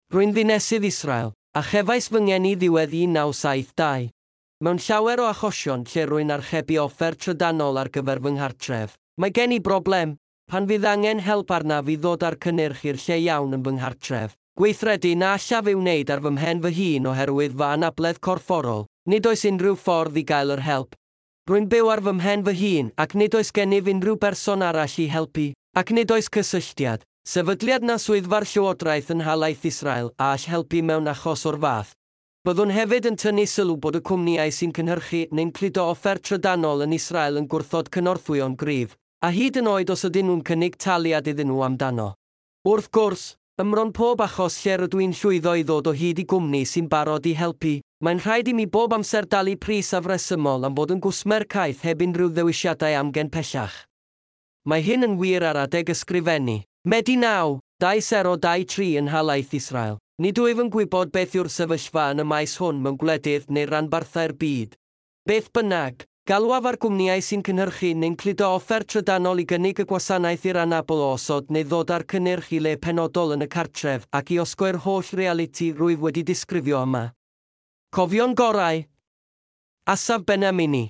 Rwy'n ddinesydd Israel, a chefais fy ngeni ddiwedd 1972. Mewn llawer o achosion lle rwy'n archebu offer trydanol ar gyfer fy nghartref, mae gen i broblem, pan fydd angen help arnaf i ddod â'r cynnyrch i'r lle iawn yn fy nghartref. Gweithredu na allaf ei wneud ar fy mhen fy hun oherwydd fy anabledd corfforol, nid oes unrhyw ffordd i gael yr help. Rwy'n byw ar fy mhen fy hun ac nid oes gennyf unrhyw berson arall i helpu, ac nid oes cysylltiad, sefydliad na swyddfa'r llywodraeth yn nhalaith Israel a all helpu mewn achos o'r fath. Byddwn hefyd yn tynnu sylw bod y cwmnïau sy'n cynhyrchu neu'n cludo offer trydanol yn Israel yn gwrthod cynorthwyo'n gryf, a hyd yn oed os ydyn nhw'n cynnig taliad iddyn nhw amdano. Wrth gwrs, ym mron pob achos lle rydw i'n llwyddo i ddod o hyd i gwmni sy'n barod i helpu, mae'n rhaid i mi bob amser dalu pris afresymol am fod yn gwsmer caeth heb unrhyw ddewisiadau amgen pellach. Mae hyn yn wir ar adeg ysgrifennu. Medi 9, 2023 yn nhalaith Israel. Nid wyf yn gwybod beth yw'r sefyllfa yn y maes hwn mewn gwledydd neu ranbarthau'r byd. Beth bynnag, galwaf ar gwmnïau sy'n cynhyrchu neu'n cludo offer trydanol i gynnig y gwasanaeth i'r anabl o osod neu ddod â'r cynnyrch i le penodol yn y cartref ac i osgoi'r holl realiti rwyf wedi disgrifio yma. Cofio'n gorau. Asaf Benamini.